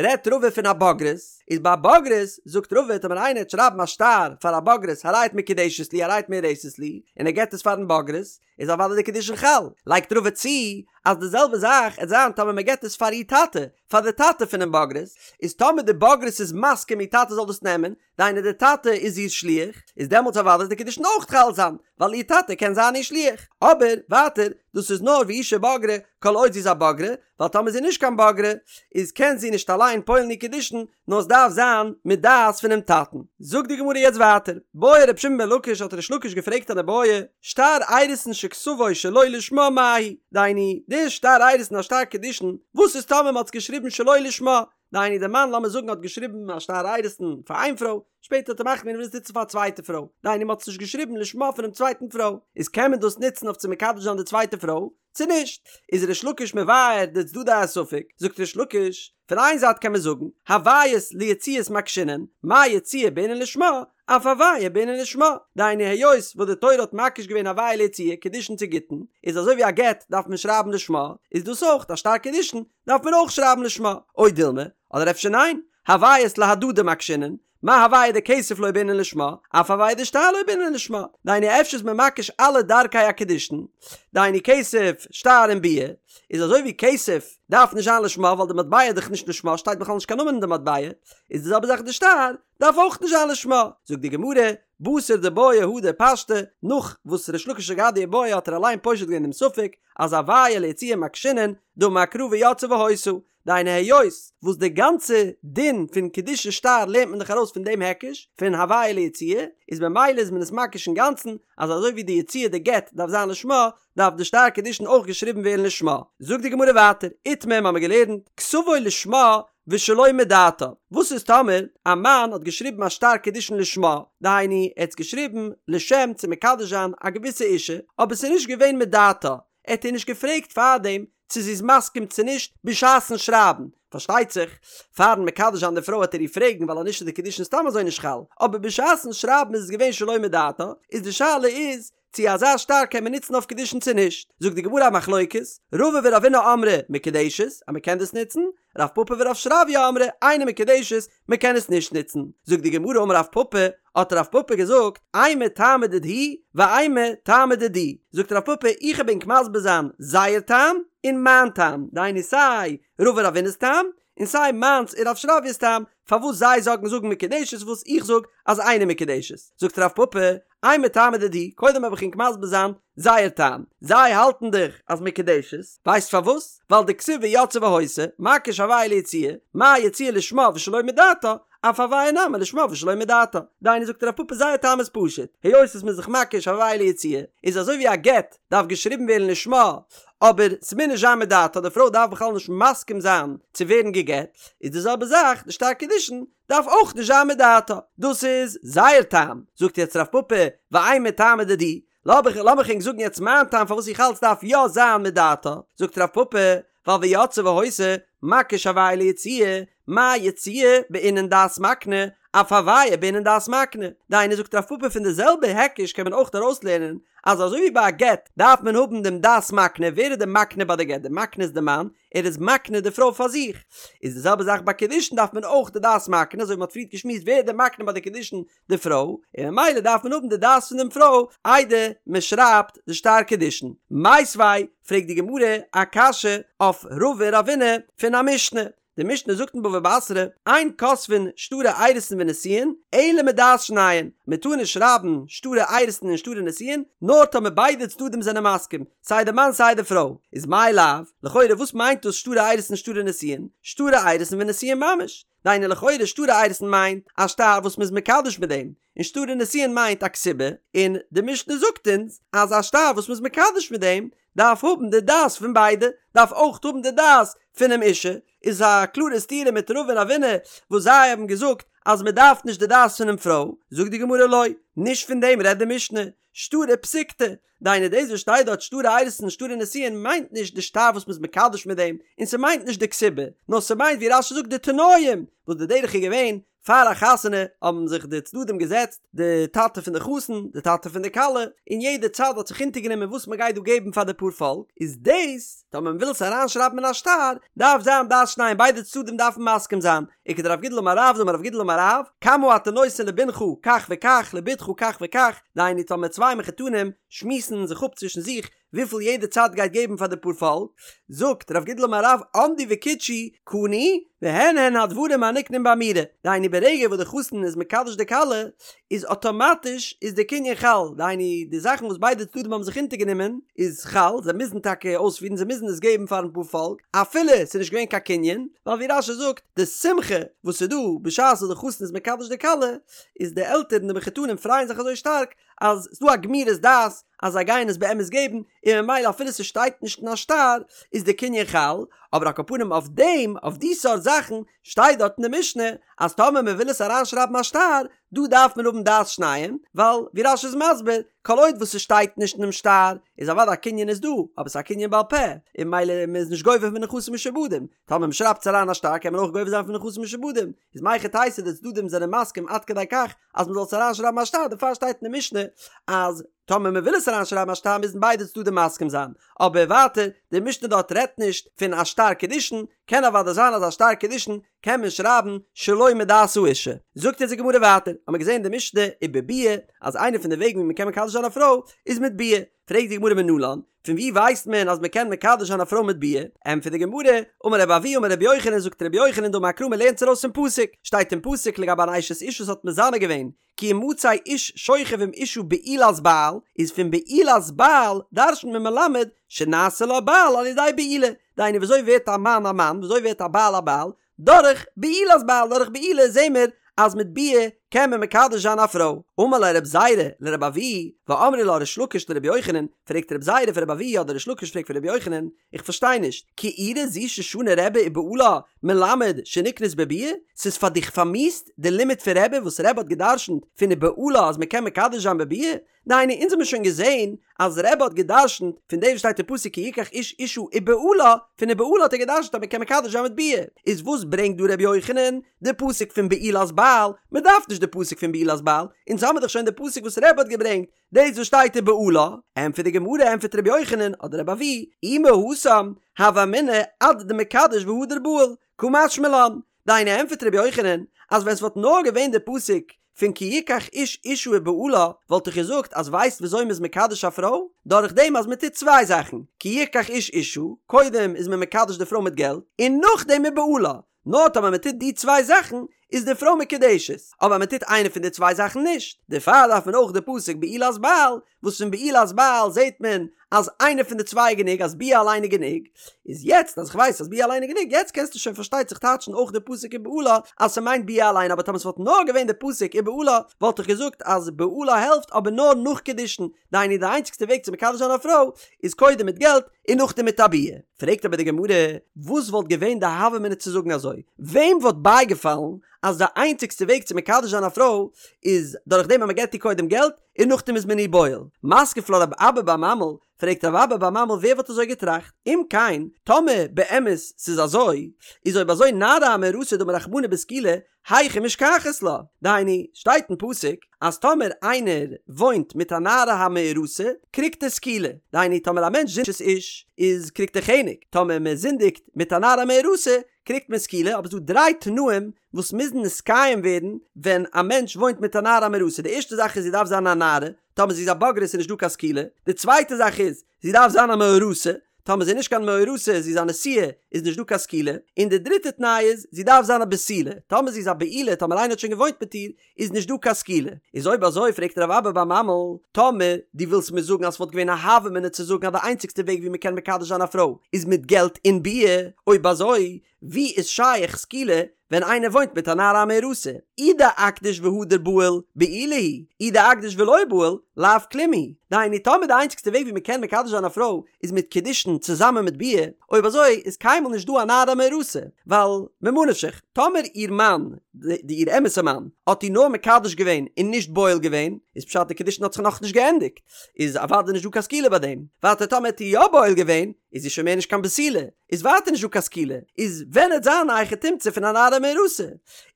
רעדט רבא פון א בוגרת, איז ביי א בוגרת זאגט רבא טאמער איינער וועט שרייבן א שטר פאר א בוגרת הרי את מקודשת לי הרי את מאורסת לי, און ער געבט עס פארן בוגרת, איז אוודאי די קידושין חל. לייגט רבא צו אז די זעלבע זאך עט זיין טאמער מען געבט עס פאר איר טאטע, פאר די טאטע פונעם בוגרת, איז טאמער די בוגרת איז מסכים איר טאטע זאל דאס נעמען, דהיינו די טאטע איז איר שליח, איז דעמאלטס אוודאי די קידושין אויך חל זיין, ווייל איר טאטע קען זיין איר שליח. אבער, ווייטער, דאס איז נאר והוא שבגרה, כל עוד זי איז א בוגרה, ווייל טאמער זי איז נישט קיין בוגרה, איז קען זי נישט אליין פועל'ן איר קידושין, נאר עס דארף זיין מיט דעת פונעם טאטן. זאגט די גמרא יעצט ווייטער, בעי ר' שמעון בן לקיש האט ריש לקיש געפרעגט אן איבעיא, שטר אירוסין שכתבו שלא לשמה מהו, דהיינו, די שטר אירוסין א שטר קידושין, וואס איז טאמער מען האט עס געשריבן שלא לשמה, דהיינו די מאן לאמיר זאגן האט געשריבן א שטר אירוסין פאר איין פרוי, שפעטער האט ער מחליט געווען ער וויל עס נוצן פאר א צווייטע פרוי, דהיינו מען האט עס נישט געשריבן לשמה פונעם צווייטן פרוי, איז קען מען דאס נוצן אויף צו מקדש זיין די צווייטע פרוי, צו נישט? איז ריש לקיש מבאר די צדדי הספק, זאגט ריש לקיש, פון איין זייט קען מען זאגן, הוויות ליציאות מקשינן, מה יציאה בעינן לשמה, אף הוויה בעינן לשמה, דהיינו היות וואס די תורה האט מקיש געווען הוויה ליציאה, קידושין צו גיטין, איז אזוי ווי א גט דארף מען שרייבן לשמה, איז דאס אויך א שטר קידושין, דארף מען אויך שרייבן לשמה, או דילמא, אדער אפשר ניין, הוויות להדדי מקשינן, מה הוויה דכסף לא בעינן לשמה, אף הוויה דשטר לא בעינן לשמה, דהיינו אפשר איז מען מקיש אלע דרכי הקידושין, דהיינו כסף, שטר און ביאה, איז אזוי ווי כסף דארף נישט זיין לשמה ווייל די מטבע איז דאך נישט לשמה שטייט בכלל נישט קיין נאמען אין די מטבע, איז די זעלבע זאך די שטר דארף אויך נישט זיין לשמה, זאגט די גמרא, בתר דבעיא הדר פשטה, נאך וואס ריש לקיש האט געהאט די איבעיא האט ער אליין פושט געווען דעם ספק אז הוויה ליציאה מקשינן, דאמר קרא ויצאה והיתה, דהיינו היות וואס די גאנצע דין פון קידושין שטר לערנט מען דאך ארויס פון דעם היקש פון הוויה ליציאה, איז ממילא איז מען עס מקיש אינגאנצן אז אזוי ווי די יציאה די גט דארף זיין לשמה דארף די שטר קידושין אויך געשריבן ווערן לשמה. זאגט די גמרא ווייטער, איתמר האמיר געלערנט, כתבו לשמה ושלא מדעתה, וואס איז טאמער א מאן האט געשריבן א שטר קידושין לשמה, דהיינו ער האט עס געשריבן לשם צו מקדש זיין א געוויסע אישה, אבער עס איז נישט געווען מדעתה, ער האט איר נישט געפרעגט פארדעם צו זי איז מסכים צו נישט בשעת'ן שרייבן, פארשטייט זיך פאר'ן מקדש זיין די פרוי העט ער איר פרעגן ווייל אז נישט איז די קידושין סתם אזוי נישט חל, אבער בשעת'ן שרייבן איז עס געווען שלא מדעתה, איז די שאלה איז צו אזא שטר קען מען נוצן אויף קידושין צו נישט, זאגט די גמרא א מחלוקת, רבא ורבינא אמרי מקודשת אז מען קען דאס נוצן, רב פפא ורב שרביא אמרי אינה מקודשת מען קען עס נישט נוצן, זאגט די גמרא אמר רב פפא, האט רב פפא געזאגט, אימא טעמא דידהו ואימא טעמא דידי, זאגט רב פפא איך וועל ענק מסביר זיין זייער טעם און מיין טעם, דהיינו סיי רבא רבינא'ס טעם און סיי מיינס און רב שרביא'ס טעם, פארוואס זיי זאגן זאגן מקודשת וואס איך זאג אז אינה מקודשת, זאגט רב פפא, אימא טעמא דידהו, קודם וועל איך ענק מסביר זיין זייער טעם, זיי האלטן דאך אז מקודשת, ווייסט פארוואס? ווייל דכתיב ויצאה והיתה, מקיש הוויה ליציאה, מה יציאה לשמה ושלא מדעתה, אף הוויה נמי לשמה ושלא מדעתה. דהיינו זאגט רב פפא זייער טעם איז פשוט, היות עס מ'איז זיך מקיש הוויה ליציאה, איז אזוי ווי א גט דארף געשריבן ווערן לשמה, אבער ס'מוז נישט זיין מדעתה, די פרוי דארף בכלל נישט מסכים זיין צו ווערן גע'גט, איז די זעלבע זאך די שטר קידושין דארף אויך נישט זיין מדעתה. דאס איז זייער טעם. זאגט יעצט רב פפא, ואימא טעמא דידי, לאמיך לאמיך ענק זאגן יעצט מיין טעם פארוואס איך האלט ס'דארף יא זיין מדעתה, זאגט רב פפא, ווייל ויצאה והיתה, מקיש הוויה ליציאה, מה יציאה בעינן דעת מקנה, אף הויה בעינן דעת מקנה, דהיינו זאגט רב פפא פון די זעלבע היקש קען מען אויך ארויסלערנען אז אזוי ווי ביי א גט דארף מען האבן דעם דעת מקנה, ווער איז די מקנה ביי די גט? די מקנה איז די מאן, ער איז מקנה די פרוי פאר זיך, איז די זעלבע זאך ביי קידושין דארף מען אויך די דעת מקנה, אזוי ווי מען האט פריערט געשמועסט ווער איז די מקנה ביי די קידושין? די פרוי, און ממילא דארף מען האבן די דעת פון דעם פרוי איידער מען שרייבט די שטר קידושין. מיתיבי, פרעגט די גמרא א קשיא אויף רבא ורבינא פון א משנה, די משנה זאגט אין בבא בתרא, אין כותבין שטרי אירוסין ונישואין אלא מדעת שניהם, מען טאר נישט שרייבן שטרי אירוסין און שטרי נישואין נאר טאמער ביידע צדדים זענען מסכים, סיי די מאן סיי די פרוי, איז מאי לאו, לכאורה וואס מיינט דאס שטרי אירוסין שטרי נישואין? שטרי אירוסין ונישואין ממש, דהיינו לכאורה שטרי אירוסין מיינט א שטר וואס מ'איז מקדש מיט דעם, און שטרי נישואין מיינט א כתובה, און די משנה זאגט אונז אז א שטר וואס מ'איז מקדש מיט דעם דארף האבן די דעת פון ביידע, דארף אויך האבן די דעת פונעם אישה, איז א קלארע סתירה מיט רבא און רבינא וואס זיי האבן געזאגט אז מ'דארף נישט די דעת פונעם פרוי, זאגט די גמרא לא, נישט פון דעם רעדט די משנה, שטרי פסיקתא, דהיינו דאס וואס שטייט דארט שטרי אירוסין שטרי נישואין מיינט נישט די שטר וואס מ'איז מקדש מיט דעם, און ס'מיינט נישט די כתובה, נאר ס'מיינט ווי רש"י זאגט די תנאים, וואס די דרך איז געווען, פאר א חתונה האבן זיך די צדדים געזעצט, די טאטע פון די חתן, די טאטע פון די כלה, און יעדע צד האט זיך אונטערגענומען וואס מ'גייט דא געבן פאר די פארפאלק, איז דאס, טאמער מ'וויל עס אריינשרייבן אין א שטר, דארף זיין דעת שניהם ביידע צדדים דארפן מסכים זיין, וכדרב גידל אמר רב דאמר רב גידל אמר רב, כמה אתה נותן לבנך כך וכך לבתך כך וכך, דהיינו טאמער צוויי מחותנים שמועסן זיך אפ צווישן זיך וויפיל יעדע צד גייט געבן פאר די פארפאלק, זאגט רב גידל אמר רב עמדו וקידשו קנו והן הן הדברים הנקנים באמירה, דהיינו ברגע וואס די חתן איז מקדש די כלה איז אטאמאטיש איז די קנין חל, דהיינו די זאכן וואס ביידע צדדים האבן זיך אונטערגענומען איז חל, זיי מוזן טאקע אויספירן זיי מוזן עס געבן פארן פארפאלק אפילו ס'איז נישט געווען קיין קנין, ווייל ווי רש"י זאגט די שמחה וואס איז דא בשעת וואס די חתן איז מקדש די כלה איז די עלטערן די מחותנים פרייען זיך אזוי שטארק אז ס'דא א גמירות דעת אז זיי גייען עס באמת געבן און ממילא אפילו ס'שטייט נישט אין א שטר איז די קנין חל, אבער על כל פנים אויף דעם אויף די סארט זאכן שטייט דארט אין די משנה אז טאמער מ'וויל עס אריינשרייבן א שטר דא דארף מען האבן דעת שניהם ווייל ווי רש"י איז מסביר כל עוד וואס ס'שטייט נישט אינעם שטר איז אוודאי א קנין איז דא אבער ס'איז א קנין בעל פה און ממילא מ'איז נישט גובה פון נכסים משועבדים טאמער מ'שרייבט עס אריין א שטר קען מען אויך גובה זיין פון נכסים משועבדים איז מהיכי תיתי די צדדים זענען מסכים עד כדי כך אז מ'זאל עס אריינשרייבן א שטר דערפאר שטייט אין די משנה אז טאמער מ'וויל עס אריינשרייבן א שטר מוזן ביידע צדדים מסכים זיין אבער ווייטער די משנה דארט רעדט נישט פון א שטר קידושין קען אוודאי זיין אז א שטר קידושין קען מען שרייבן שלא מדעת האישה. זאגט אונז די גמרא ווייטער, האמיר געזען אין די משנה ובביאה אז איינע פון די וועגן ווי מ'קען מקדש זיין א פרוי איז מיט ביאה, פרעגט די גמרא מנלן, פון ווי ווייסט מען אז מ'קען מקדש זיין א פרוי מיט ביאה? ענטפערט די גמרא, אמר רבי אבהו אמר רבי יוחנן זאגט רבי יוחנן דאמר קרא מ'לערנט עס ארויס פון פסוק, שטייט אין פסוק לגבי אן אשת איש וואס האט מזנה געווען, כי ימצא איש שוכב עם אשה בעולת בעל, איז פון בעולת בעל דרש'נט מען מלמד שנעשה לה בעל על ידי בעילה, דהיינו וויאזוי ווערט א מאן א מאן, וויאזוי ווערט א בעל א בעל, דורך בעולת בעל, דורך בעילה זעהן מיר אז מיט ביאה קען מען מקדש זיין א פרוי. אמר ליה רב זירא לרב אבהו, ואמרי לה ריש לקיש לרבי יוחנן, פרעגט רב זירא פון רב אבהו אדער ריש לקיש פרעגט פון רבי יוחנן, איך פארשטיי נישט, כעורה זו ששנה רבי ובעלה מלמד שנקנית בביאה? ס'איז פאר דיך פארמיאוסט די לימוד פון רבי וואס רבי האט גע'דרש'נט פון ובעלה אז מ'קען מקדש זיין בביאה? דהיינו אונז האמיר שוין געזעהן אז רבי האט גע'דרש'נט פון דעם וואס שטייט אין פסוק כי יקח איש אשה ובעלה, פון ובעלה האט ער גע'דרש'נט אז מ'קען מקדש זיין מיט ביאה, איז וואס ברענגט דא רבי יוחנן די פסוק פון בעולת בעל? מ'דארף נישט די פסוק פון בעולת בעל, אונז האמיר דאך שוין די פסוק וואס רבי האט געברענגט, דאס וואס שטייט ובעלה, ענטפערט די גמרא, ענטפערט רבי יוחנן, אדער רבי אבהו, אי מהתם, הוה אמינא עד דמקדש והדר בעיל, קא משמע לן, דהיינו ענטפערט רבי יוחנן, אז ווען ס'וואלט נאר געווען די פסוק פון כי יקח איש אשה ובעלה, וואלט איך געזאגט אז ווייסט וויאזוי מ'איז מקדש א פרוי? דורך דעם אז מ'טוט צוויי זאכן, כי יקח איש אשה, קודם איז מען מקדש די פרוי מיט געלט, און נאכדעם ובעלה, נאר טאמער מען טוט די צוויי זאכן איז די פרוי מקודשת, אבער מען טוט איינע פון די צוויי זאכן נישט, דערפאר דארף מען אויך די פסוק בעולת בעל, וואס פון בעולת בעל זעט מען אז איינע פון די צוויי איז גענוג, אז ביאה אליין איז גענוג, איז יעצט אז איך ווייס אז ביאה אליין איז גענוג, יעצט קענסטו שוין פארשטייט זיך טייטשן אויך די פסוק ובעלה אז ס'מיינט ביאה אליין, אבער טאמער ס'וואלט נאר געווען די פסוק ובעלה וואלט איך געזאגט אז בעלה העלפט אבער נאר נאך קידושין, דהיינו די איינציגסטע וועג צו מקדש זיין א פרוי איז קודם מיט געלט און נאכדעם מיט א ביאה. פרעגט אבער די גמרא, וואס וואלט געווען די הוה אמינא צו זאגן אזוי? וועם וואלט בייגעפאלן אז די איינציגסטע וועג צו מקדש זיין א פרוי איז דורך דעם אז מען געבט איר קודם געלט און נאכדעם איז מען איר בועל? מתקיף לה רב אבא בר ממל, פרעגט רב אבא בר ממל ווער וואלט אזוי געטראכט? אם כן, טאמער באמת ס'איז אזוי, איז אויב אזוי נערה המאורסה דאמר רחמנא בסקילה, היכי משכחת לה? דהיינו, שטייט אין פסוק אז טאמער איינער וואוינט מיט א נערה המאורסה קריגט ער סקילה, דהיינו טאמער א מענטש זינדיגט אשת איש איז קריגט ער חנק, טאמער מען זינדיגט מיט א נערה המאורסה קריגט מען סקילה, אבער ס'דא דריי תנאים וואס מוזן נתקיים ווערן ווען א מענטש וואוינט מיט א נערה המאורסה, די ערשטע זאך איז זי דארף זיין א נערה, טאמער זי איז א בוגרת איז נישט דא קיין סקילה, די צווייטע זאך איז זי דארף זיין א מאורסה, טאמער זי איז נישט קיין מאורסה, זי איז א נשואה, איז נישט דא קיין סקילה, און די דריטע תנאי איז, זי דארף זיין א בתולה, טאמער זי איז א בעולה, טאמער איינער האט שוין געוואוינט מיט איר, איז נישט דא קיין סקילה. איז אויב אזוי פרעגט רב אבא בר ממל, טאמער דו ווילסט מיר זאגן אז ס'וואלט געווען א הוה אמינא צו זאגן אז די איינציגסטע וועג ווי מ'קען מקדש זיין א פרוי איז מיט געלט און ביאה, אויב אזוי ווי איז שייך סקילה ווען איינער וואוינט מיט א נערה המאורסה? אי דאקדיש והדר בעיל, בעולה היא, אי דאקדיש ולא בעיל, לאו כלום היא. דהיינו טאמער די איינציגסטע וועג ווי מען קען מקדש זיין א פרוי איז מיט קידושין צוזאמען מיט ביאה, אויב אזוי איז קיינמאל נישט דא א נערה המאורסה, ווייל ממה נפשך, טאמער איר מאן, די איר אמת'ע מאן, האט איר נאר מקדש געווען און נישט בועל געווען, איז פשט די קידושין האט זיך נאכנישט געענדיגט, איז אוודאי נישט דא קיין סקילה ביי דעם. ווייטער טאמער האט איר יא בועל געווען, איז זי שוין מער נישט קיין בתולה, איז ווייטער נישט דא קיין סקילה, איז ווען עט זיין א היכי תמצא פון א נערה המאורסה?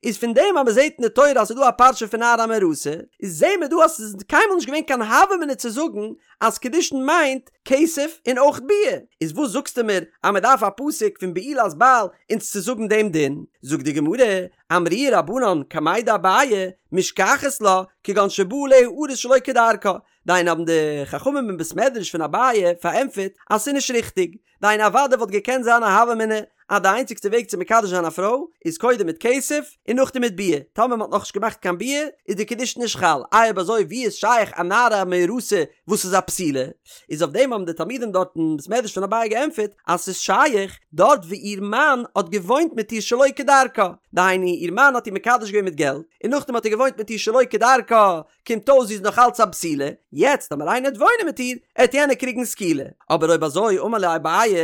איז פון דעם אז מ'זעט אין די תורה אז ס'איז דא א פרשה פון נערה המאורסה, איז זעהן מיר דא אז ס'איז קיינמאל נישט געווען קיין הוה אמינא צו זאגן אז קידושין מיינט כסף און אויך ביאה, איז וואס זאגסטו מיר אז מ'דארף א פסוק פון בעולת בעל אונז צו זאגן דעם דין? זאגט די גמרא, אמרוה רבנן קמיה דאביי, משכחת לה, כגון שבא עליה ארוס שלא כדרכה, דהיינו האבן די חכמים אין בית מדרש פון אביי פארענטפערט אז ס'איז נישט ריכטיג, דהיינו אוודאי וואלט געקענט זיין א הוה אמינא אז די איינציגסטע וועג צו מקדש זיין א פרוי איז קודם מיט כסף און נאכדעם מיט ביאה, טאמער מ'האט נאכנישט געמאכט קיין ביאה איז די קידושין נישט חל, איי אויב אזוי ווי איז שייך א נערה המאורסה וואס איז א בתולה? איז אויף דעם האבן די תלמידים דארט אין בית מדרש פון אביי געענטפערט אז ס'איז שייך דארט ווי איר מאן האט געוואוינט מיט איר שלא כדרכה, דהיינו איר מאן האט איר מקדש געווען מיט געלט און נאכדעם האט ער געוואוינט מיט איר שלא כדרכה, קומט אויס זי איז נאך אלץ א בתולה, יעצט טאמער איינער עט וואוינען מיט איר, עט יענער קריגן סקילה. אבער אויב אזוי אמר להו אביי,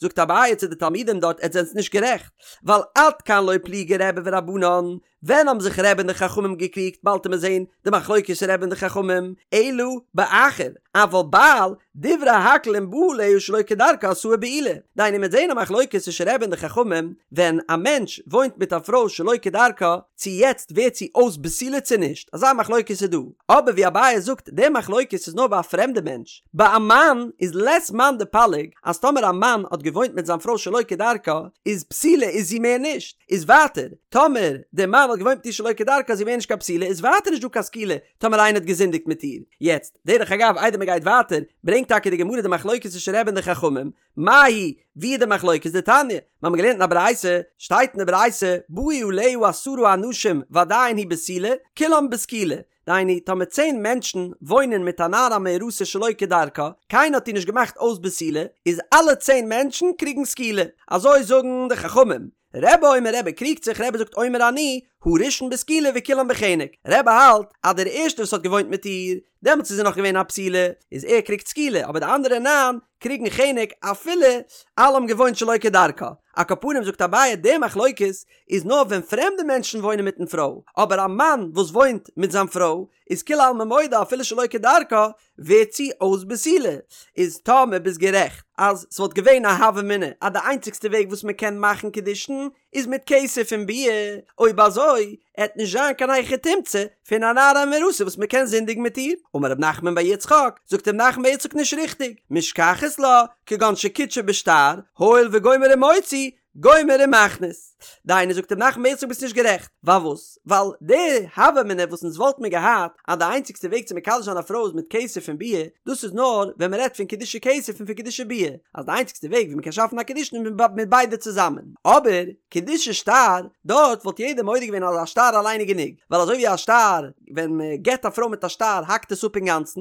זאגט אביי צו די תלמידים דארט עטס זענטס נישט גערעכט, ווייל עד כאן לא פליגי רבי ורבנן, ווען האבן זיך רבי און די חכמים געקריגט באלד עמיר זעהן די מחלוקת רבי און די חכמים, אלא באחר, אבל בעל, דברי הכל אם בא עליה שלא כדרכה עשאה בעולה, דהיינו מ'עט זעהן א מחלוקת צווישן רבי און די חכמים, ווען א מענטש וואוינט מיט א פרוי שלא כדרכה, צו יעצט ווערט זי אויס בתולה צו נישט, אזא מחלוקת איז דא, אבער ווי אביי זאגט די מחלוקת איז נאר ביי א פרעמדע מענטש, ביי א מאן איז לית מאן דפליג אז טאמער א מאן האט געוואוינט מיט זיין פרוי שלא כדרכה איז בתולה איז זי מער נישט, איז ווייטער טאמער דער מאן האט געוואוינט מיט איר שלא כדרכה איז זי מער נישט קיין בתולה איז ווייטער נישט דא קיין סקילה טאמער איינער האט געזינדיגט מיט איר. יעצט, דרך אגב איידער מען גייט ווייטער, ברענגט טאקע די גמרא די מחלוקת צווישן רבי און די חכמים, מאי היא, ווי איז די מחלוקת? דתניא, מיר האבן געלערנט אין א ברייתא, שטייט אין די ברייתא, באו עליה עשרה אנשים ועדיין היא בתולה, כולם בסקילה, דהיינו, טאמער צען מענטשן וואוינען מיט א נערה המאורסה שלא כדרכה, קיינער האט איר נישט געמאכט אויס בתולה, איז אלע צען מענטשן קריגן סקילה. אזוי זאגן די חכמים. רבי אומר רבי קריגט זיך רבי זאגט אומר אני הראשון בסקילה וכולם בחנק רבי האלט אז דער ערשטער וואס האט געוואוינט מיט איר דעמאלטס איז זי נאך געווען א בתולה איז ער קריגט סקילה אבער די אנדערע ניין קריגן חנק אפילו אלע האבן געוואוינט שלא כדרכה על כל פנים זאגט אביי די מחלוקת איז נאר ווען פרעמדע מענטשן וואוינען מיטן פרוי אבער א מאן וואס וואוינט מיט זיין פרוי איז כולי עלמא מודה אפילו שלא כדרכה ווערט זי אויס בתולה, איז טאמער ביסט גערעכט אז ס'וואלט געווען א הוה אמינא אז די איינציגסטע וועג וואס מ'קען מאכן קידושין איז מיט כסף און ביאה, אויב אזוי עט נישט זיין קיין היכי תמצא פון א נערה המאורסה וואס מ'קען זינדיגן מיט איר. אמר רב נחמן בר יצחק, זאגט רב נחמן בר יצחק נישט ריכטיג, משכחת לה, כגון שקידשה בשטר, הואיל וגומר ומוציא, גומר ומכניס. דהיינו זאגט רב נחמן בר יצחק ביסט נישט גערעכט. פארוואס? ווייל די הוה אמינא וואס אונז וואלט מיר געהאט אז די איינציגסטע וועג צו מקדש זיין א פרוי איז מיט כסף און ביאה, דאס איז נאר ווען מען רעדט פון קידושי כסף און פון קידושי ביאה, אז די איינציגסטע וועג ווי מען קען שאפן א קידושין איז מיט ביידע צוזאמען. אבער קידושי שטר, דארט וואלט יעדער מודה געווען אז א שטר אליין איז גענוג, ווייל אזוי ווי א שטר, ווען מען געבט א פרוי מיט א שטר האקט עס אפ אינגאנצן,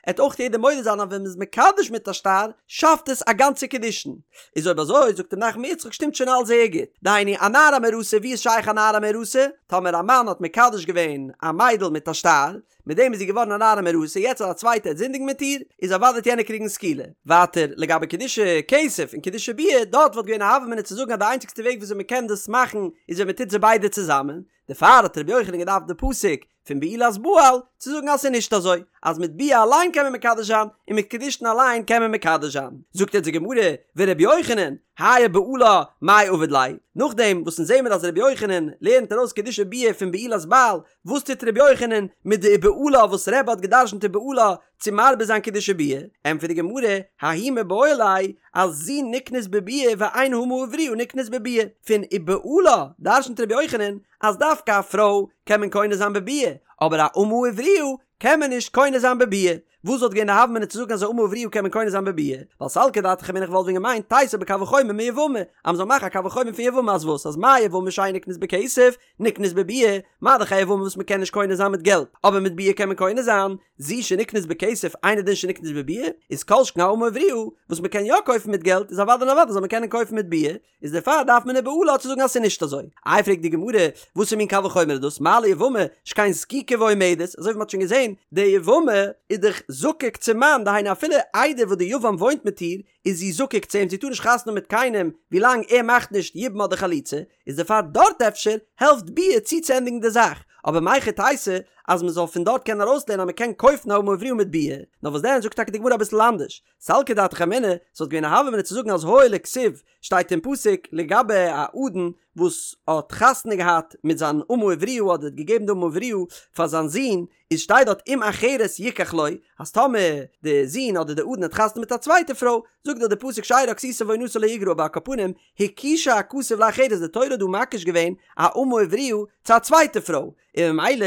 עט אויך יעדער מודה זיין אז ווען מ'איז מקדש מיט א שטר שאפט עס א גאנצע קידושין. איז אויב אזוי זאגט רב נחמן בר יצחק שטימט שוין אלס זייער גוט. דהיינו א נערה המאורסה ווי איז שייך א נערה המאורסה? טאמער א מאן האט מקדש געווען א מיידל מיט א שטר, מיט דעם איז זי געווארן א נערה מאורסה, יעצט אז א צווייטער וועט זינדיגן מיט איר, איז אוודאי וועט יענער קריגן סקילה. ווייטער, לגבי קידושי כסף און קידושי ביאה, דארט וואלט געווען א הוה אמינא צו זאגן אז די איינציגסטע וועג וויאזוי מען קען דאס מאכן איז ווען מען טוט זיי ביידע צוזאמען, דערפאר האט רבי יוחנן געדארפט די פסוק פון בעולת בעל צו זאגן אז ס'איז נישט אזוי אז מיט ביאה אליין קען מען מקדש זיין און מיט קידושין אליין קען מען מקדש זיין. זאגט יעצט די גמרא, ורבי יוחנן, האי ובעלה מאי עביד ליה, נאכדעם וואס אונז זעמיר אז רבי יוחנן לערנט ארויס קידושי ביאה פון בעולת בעל, וואס טוט רבי יוחנן מיט די ובעלה וואס רבי האט גע'דרש'נט ובעלה צו מרבה זיין קידושי ביאה? ענטפערט די גמרא, ההוא מיבעי ליה, אז זו נקנית בביאה ואין האמה העבריה נקנית בביאה. פון ובעלה דרש'נט רבי יוחנן אז דווקא א פרוי קען מען קונה זיין בביאה, אבער א אמה עבריה קען מען נישט קונה זיין בביאה. וואס וואלט געווען די הוה אמינא צו זאגן אז א אמה עבריה קען מען קונה זיין בביאה? ווייל סלקא דעתך אמינא איך וואלט ווען געמיינט תיתי בקל וחומר מיבמה, אז מ'זאל מאכן א קל וחומר פון יבמה אז וואס? אז מה יבמה שאין נקנית בכסף, נקנית בביאה, מה דאך א יבמה וואס מ'קען נישט קונה זיין מיט געלט, אבער מיט ביאה קען מען קונה זיין, זו שנקנית בכסף אינו דין שנקנית בביאה, איז כל שכן א אמה עבריה וואס מ'קען יא קויפן מיט געלט איז אוודאי און אוודאי זאל מען קענען קויפן מיט ביאה, איז דערפאר דארף מען ובעלה צו זאגן אז ס'איז נישט אזוי. איי פרעגט די גמרא, וואסער מין קל וחומר איז דאס, מה ליבמה שכן זקוקה ועומדת, אזוי ווי מ'האט שוין געזען, די יבמה איז דאך זקוק צום מאן, דהיינו אפילו איידער וואס די יבם וואוינט מיט איר, איז זי זקוק צו אים, זי טאר נישט חתונה האבן מיט קיינעם ווילאנג ער מאכט נישט יבום אדער חליצה, איז דערפאר דארט אפשר העלפט ביאה צוצוענדיגן די זאך, אבער מהיכי תיתי אז מ'זאל פון דארט קענען ארויסלערנען אז מ'קען קויפן א אמה עבריה מיט ביאה, נאר וואס דען זאגט טאקע די גמרא אביסל אנדערש, סלקא דעתך אמינא, ס'וואלט געווען א הוה אמינא צו זאגן אז הואיל וכתיב שטייט אין פסוק לגבי א אדון וואס האט חתונה געהאט מיט זיין אמה עבריה אדער האט געגעבן די אמה עבריה פאר זיין זון, איז שטייט דארט אם אחרת יקח לו, אז טאמער די זון אדער די אדון האט חתונה מיט א צווייטע פרוי, זאגט דארט די פסוק שארה כסותה ועונתה לא יגרע אבער על כל פנים הקישה הכתוב לאחרת די תורה האט דא מקיש געווען א אמה עבריה צו א צווייטע פרוי, און ממילא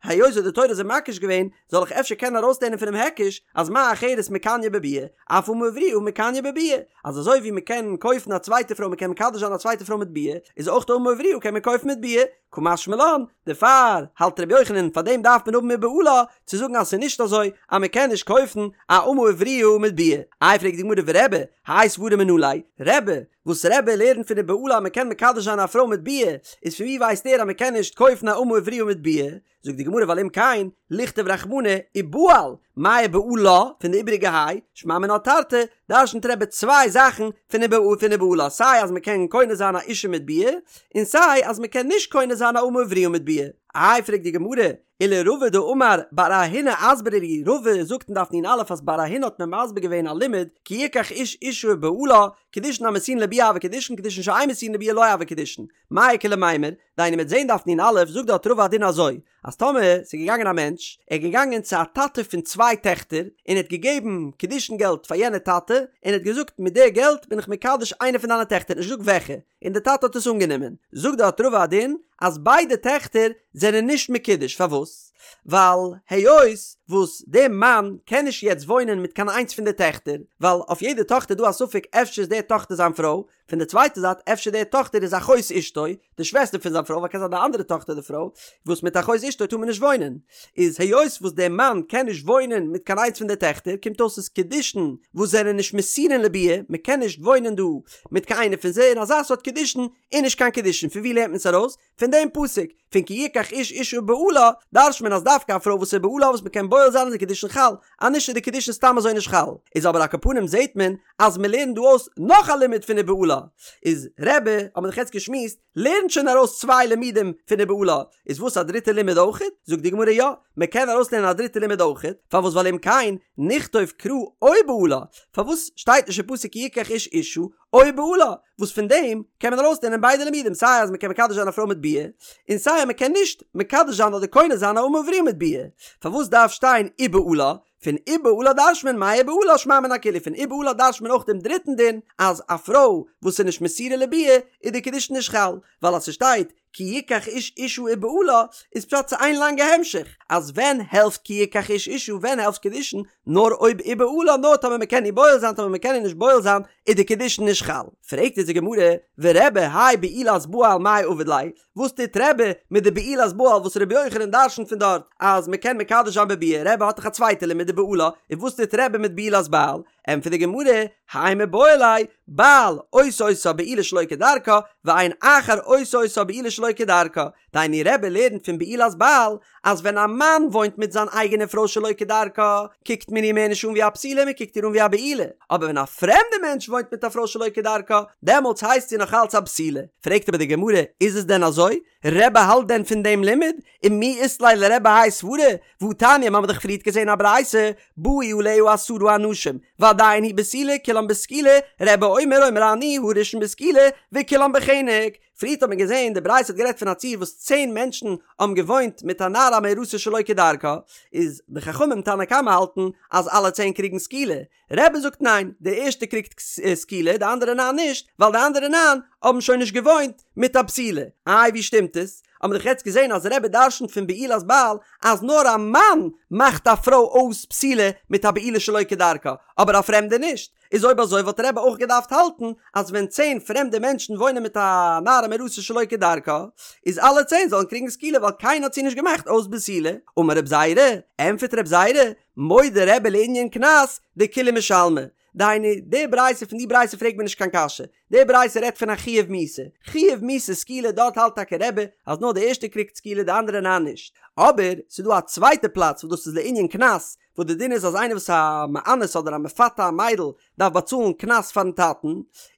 היות וואס די תורה איז מקיש געווען, זאל איך אפשר קענען ארויסלערנען פונעם היקש אז מה אחרת מקניא בביאה, אף אמה עבריה מקניא בביאה, אז אזוי ווי מען קען קויפן א צווייטע פרוי מען קען מקדש זיין א צווייטע פרוי מיט ביאה, איז אויך די אמה עבריה קען מען קויפן מיט ביאה, קא משמע לן, דערפאר האלט רבי יוחנן פאר דעם דארף מען האבן ובעלה צו זאגן אז ס'איז נישט אזוי אז מען קען נישט קויפן א אמה עבריה מיט ביאה. איי פרעגט די גמרא ורבי, האי סברא מנא ליה, רבי, וואס רבי לערנט פון ובעלה אז מען קען מקדש זיין א פרוי מיט ביאה, איז פון ווי ווייסט ער אז מען קען נישט קויפן א אמה עבריה מיט ביאה? זאגט די גמרא ווייל אם כן, לכתוב רחמנא ובעל, מאי ובעלה, פון די איבעריגע היי, שמע מינה תרתי, דרשנ'ט רבי צוויי זאכן פון פון ובעלה, סיי אז מען קען קונה זיין א אישה מיט ביאה, און סיי אז מען קען נישט קונה זיין א אמה עבריה מיט ביאה. איי פרעגט די גמרא, ולרבא דאמר בר אהינא אסברה לי, רבא זאגט אין דף נ"א אז בר אהינא האט מיר מסביר געווען א לימוד, כי יקח איש אישה ובעלה, קידושין המסורין לביאה הוו קידושין קידושין שאין מסורין לביאה לא הוו קידושין, מאי איכא למימר, דהיינו מ'עט זעהן דף נ"א זאגט דארט רבא א דין אזוי, אז טאמער ס'איז געגאנגען א מענטש, ער איז געגאנגען צו א טאטע פון צוויי טעכטער, און ער האט געגעבן קידושין געלט פאר יענע טאטע, און ער האט געזאגט מיט די געלט בין איך מקדש איינע פון דיינע טעכטער, נישט געזאגט וועלכע, און די טאטע האט עס אנגענומען, זאגט דארט רבא א דין אז ביידע טעכטער זענען נישט מקודש, פארוואס? ווייל היות וואס די מאן קען נישט יעצט וואוינען מיט קיין איינס פון די טעכטער, ווייל אויף יעדע טאכטער איז דא א ספק אפשר איז די טאכטער זיין פרוי, פון די צווייטע זייט אפשר די טאכטער איז אחות אשתו, די שוועסטער פון זיין פרוי, ווייל קען זיין די אנדערע טאכטער די פרוי, וואס מיט אחות אשתו טאר מען נישט וואוינען, איז היות וואס די מאן קען נישט וואוינען מיט קיין איינס פון די טעכטער קומט אויס ס'איז קידושין וואס זענען נישט מסורין לביאה, מען קען נישט וואוינען דא מיט קיין איינע פון זיי און אזא סארט קידושין איז נישט קיין קידושין, פון ווי לערנט מען עס ארויס? פון דעם פסוק, פון כי יקח איש אישה ובעלה, דרש'ט מען אז דווקא א פרוי וואס איז בעלה וואס מען קען בועל זיין איז די קידושין חל, אז נישט איז די קידושין סתם אזוי נישט חל. איז אבער על כל פנים זעהט מען אז מען לערנט דא אויס נאך א לימוד פון ובעלה, איז רבי, האט מען דאך יעצט געשמועסט, לערנט שוין ארויס צוויי לימודים פון ובעלה, איז וואס א דריטע לימוד אויכעט? זאגט די גמרא יא, מען קען ארויסלערנען א דריטע לימוד אויכעט, פארוואס ווייל אם כן נכתוב קרא או בעלה, פארוואס שטייט נישט אין פסוק כי יקח איש אישה או בעלה, וואס פון דעם קען מען ארויסלערנען ביידע לימודים סיי אז מען קען מקדש זיין א פרוי מיט ביאה, און סיי אז מען קען נישט מקדש זיין אדער קונה זיין א אמה עבריה מיט ביאה, פארוואס דארף שטיין ובעלה? פון ובעלה דרש'ט מען מאי ובעלה שמע מינה כולהו, פון ובעלה דרש'ט מען אויך דעם דריטן דין אז א פרוי וואס איז נישט מסורה לביאה איז די קידושין נישט חל, ווייל אז ס'שטייט כי יקח איש אישה ובעלה איז פשט ס'איז איין לאנגע המשך אז ווען העלפט כי יקח איש אישה ווען העלפט קידושין נאר אויב ובעלה נאר טאמער מ'קען איר בועל זיין טאמער מ'קען איר נישט בועל זיין איז די קידושין נישט חל. פרעגט אונז די גמרא ורבי האי בעולת בעל מאי עביד ליה וואס טוט רבי מיט די בעולת בעל וואס רבי יוחנן דרשנ'ט פון דארט אז מ'קען מקדש זיין בביאה רבי האט דאך א צווייטע לימוד ובעלה און וואס טוט רבי מיט בעולת בעל ענטפערט די גמרא, האי מיבעי ליה, בעל עושה אותה בעילה שלא כדרכה, ואין אחר עושה אותה בעילה שלא כדרכה. דהיינו רבי לערנט פון בעולת בעל אז ווען א מאן. מאן וואוינט מיט זיין אייגענע פרוי שלא כדרכה, קוקט מען איר מער נישט אן ווי א בתולה, מען קוקט איר אן ווי א בעולה, אבער ווען א פרעמדע מענטש וואוינט מיט א פרוי שלא כדרכה, דעמאלטס הייסט זי נאך אלץ א בתולה. פרעגט אבער די גמרא, איז עס דען אזוי? רבי האלט דען פון דעם לימוד? ומי אית ליה לרבי האי סברא? והתניא, מ'האמיר דאך פריערט געזען א ברייתא, באו עליה עשרה אנשים, ועדיין היא בתולה, כולם בסקילה, רבי אומר אומר אני הראשון בסקילה, וכולם בחנק. פריערט האט מען געזען די ברייתא האט גערעדט פון א ציור וואס צען מענטשן האבן געוואוינט מיט א נערה המאורסה שלא כדרכה, איז די חכמים תנא קמא האלטן אז אלע צען קריגן סקילה, רבי זאגט ניין, דער ערשטער קריגט סקילה די אנדערע ניין נישט, ווייל די אנדערע ניין האבן שוין נישט געוואוינט מיט א בתולה. איי ווי שטימט עס? האבן מיר דאך יעצט געזען אז רבי דרשנ'ט פון בעולת בעל אז נאר א מאן מאכט א פרוי אויס בתולה מיט א בעילה שלא כדרכה, אבער א פרעמדער נישט. איז אויב אזוי וואלט רבי אויך געדארפט האלטן אז ווען צען פרעמדע מענטשן וואוינען מיט א נערה מאורסה שלא כדרכה, איז אלע צען זאלן קריגן סקילה ווייל קיינער האט זי נישט געמאכט אויס בתולה. אמר רב זירא, ענטפערט רב זירא, מודה רבי לענין קנס דכולהו משלמי, דהיינו, די ברייתא פון די ברייתא פרעגט מען נישט קיין קשיא, די ברייתא רעדט פון א חיוב מיתה, חיוב מיתה סקילה דארט האלט טאקע רבי אז נאר די ערשטע קריגט סקילה די אנדערע ניין נישט, אבער ס'איז דא א צווייטע פלאץ וואס דאס איז לענין קנס, וואס די דין איז אז איינער וואס א מאנס אדער א מפתה א מיידל דארף באצאלן קנס פארן טאטן,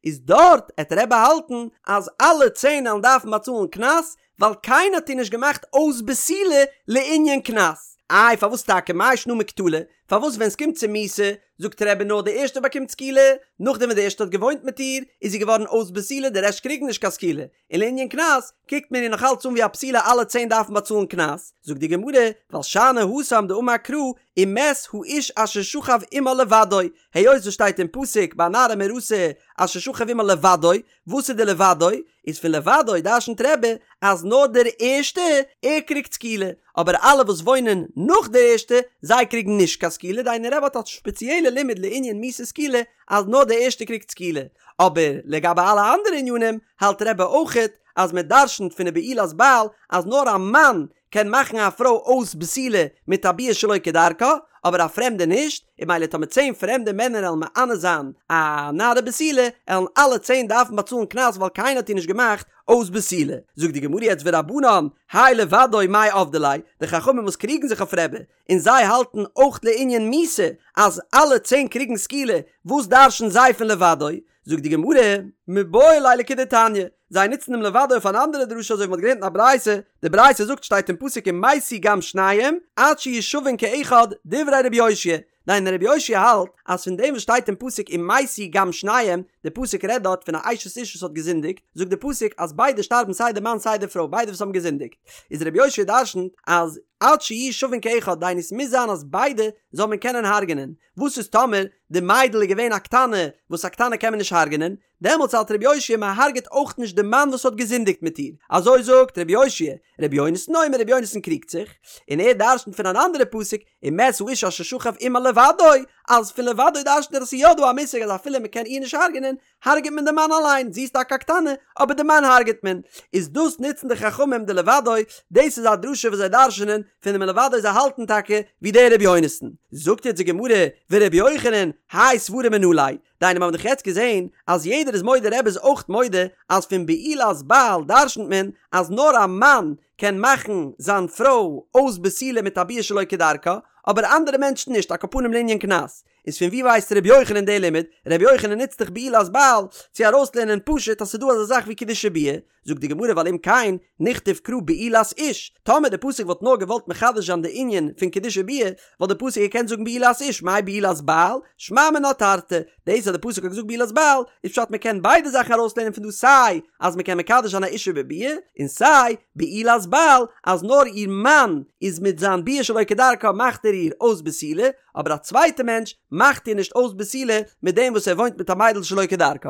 איז דארט עט רבי האלטן אז אלע צען עלן דארפן באצאלן קנס, ווייל קיינער האט איר נישט געמאכט אויס בתולה לענין קנס. איי פארוואס טאקע מאי שנא מקטלא? פארוואס ווען סקומט צו מיתה זאגט רבי נאר די ערשטע באקומט סקילה, נאכדעם ווען די ערשטע האט געוואוינט מיט איר איז זי געווארן אויס בתולה די רעשט קריגן נישט קיין סקילה, און לענין קנס קוקט מען איר נאך אלץ אן ווי א בתולה אלע צען דארפן באצאלן קנס, זאגט די גמרא ווייל שאני התם דאמר קרא ומת האיש אשר שכב עמה לבדו, היות וואס שטייט אין פסוק ביי נערה מאורסה אשר שכב עמה לבדו, וואס איז די לבדו? איז פון לבדו דרשנ'ט רבי אז נאר דער ערשטע ער קריגט סקילה, אבער אלע וואס וואוינען נאך דער ערשטע זיי קריגן נישט קיין סקילה, דהיינו רבי האט א שפעציעלע לימוד לענין מיתת סקילה אז נאר דער ערשטע קריגט סקילה, אבער לגבי אלע אנדערע ענינים האלט רבי אויכעט אז מען דרשנ'ט פון די בעולת בעל אז נאר א מאן קען מאכן א פרוי אויס בתולה מיט א ביאה שלא כדרכה, אבער א פרעמדע נישט, און ממילא טאמער צען פרעמדע מענער עלן מאנס זיין א נערה בתולה, עלן אלע צען דארפן באצאלן קנס ווייל קיינער האט איר נישט געמאכט אויס בתולה. זאגט די גמרא יעצט ורבנן, האי לבדו מאי עבדי ליה, די חכמים וואס קריגן זיך אויף רבי, און זיי האלטן אויך לענין מיתה אז אלע צען קריגן סקילה, וואס דרש'ן זיי פון לבדו? זאגט די גמרא, מיבעי ליה לכדתניא, זיי נוצן דעם לבדו אויף אן אנדערע דרשה אזוי ווי מ'האט געלערנט אין א ברייתא, די ברייתא זאגט שטייט אין פסוק ומתו גם שניהם עד שיהיו שווין כאחד דברי רבי יאשיה, דהיינו רבי יאשיה האלט אז פון דעם וואס שטייט אין פסוק ומתו גם שניהם, די פסוק רעדט דארט פון א אשת איש וואס האט געזינדיגט, זאגט די פסוק אז ביידע שטארבן סיי די מאן סיי די פרוי ביידע וואס האבן געזינדיגט, איז רבי יאשיה דרשנ'ט אז עד שיהיו שווין כאחד דהיינו ס'מוז זיין אז ביידע זאל מען קענען הרג'נען, וואס איז טאמער די מיידל איז געווען א קטנה, וואס א קטנה קען מען נישט הרג'נען, דעמאלטס האלט רבי יאשיה מען הרג'עט אויך נישט די מאן וואס האט געזינדיגט מיט איר, אזוי זאגט רבי יאשיה, רבי יונתן אומר רבי יונתן קריגט זיך, און ער דרשנ'ט פון אן אנדערע פסוק, ומת האיש אשר שכב עמה לבדו, אז פון לבדו דרשנ'ט ער אז ס'איז יא דא א מושג אז אפילו מען קען איר נישט הרג'נען, הרג'עט מען די מאן אליין, זי איז טאקע א קטנה, אבער די מאן הרג'עט מען. איז דאס נוצן די חכמים די לבדו, דאס איז א דרשה וואס זיי דרש'נען פון דעם לבדו זיי האלטן טאקע ווי דער רבי יונתן. זאגט יעצט די גמרא, ורבי יוחנן, האי סברא מנא ליה, דהיינו מיר האבן דאך יעצט געזען אז יעדער איז מודה רבי איז אויך מודה אז פון בעולת בעל דרש'נט מען אז נאר א מאן קען מאכן זיין פרוי אויס בתולה מיט א ביאה שלא כדרכה, אבער אנדערע מענטשן נישט, על כל פנים לענין קנס. איז פון ווי ווייסט ר' יוחנן די לימוד? ר' יוחנן נוצט דאך בעולת בעל צו ארויסלערנען פשוט אז ס'איז דא אזא זאך ווי קידושי ביאה, זאגט די גמרא ווייל אם כן נכתוב קרא בעולת איש, טאמער די פסוק וואלט נאר געוואלט מחדש זיין די ענין פון קידושי ביאה, וואלט די פסוק געקענט זאגן בעולת איש, מאי בעולת בעל? שמע מינה תרתי, דאס אז די פסוק האט געזאגט בעולת בעל, איז פשט מ'קען ביידע זאכן ארויסלערנען פון דא סיי אז מ'קען מקדש זיין א אישה בביאה, און סיי בעולת בעל אז נאר איר מאן איז מיט זיין ביאה שלא כדרכה מאכט ער איר אויס בתולה, אבער א צווייטע מענטש מאכט איר נישט אויס בתולה מיט דעם וואס ער וואוינט מיט א מיידל שלא כדרכה.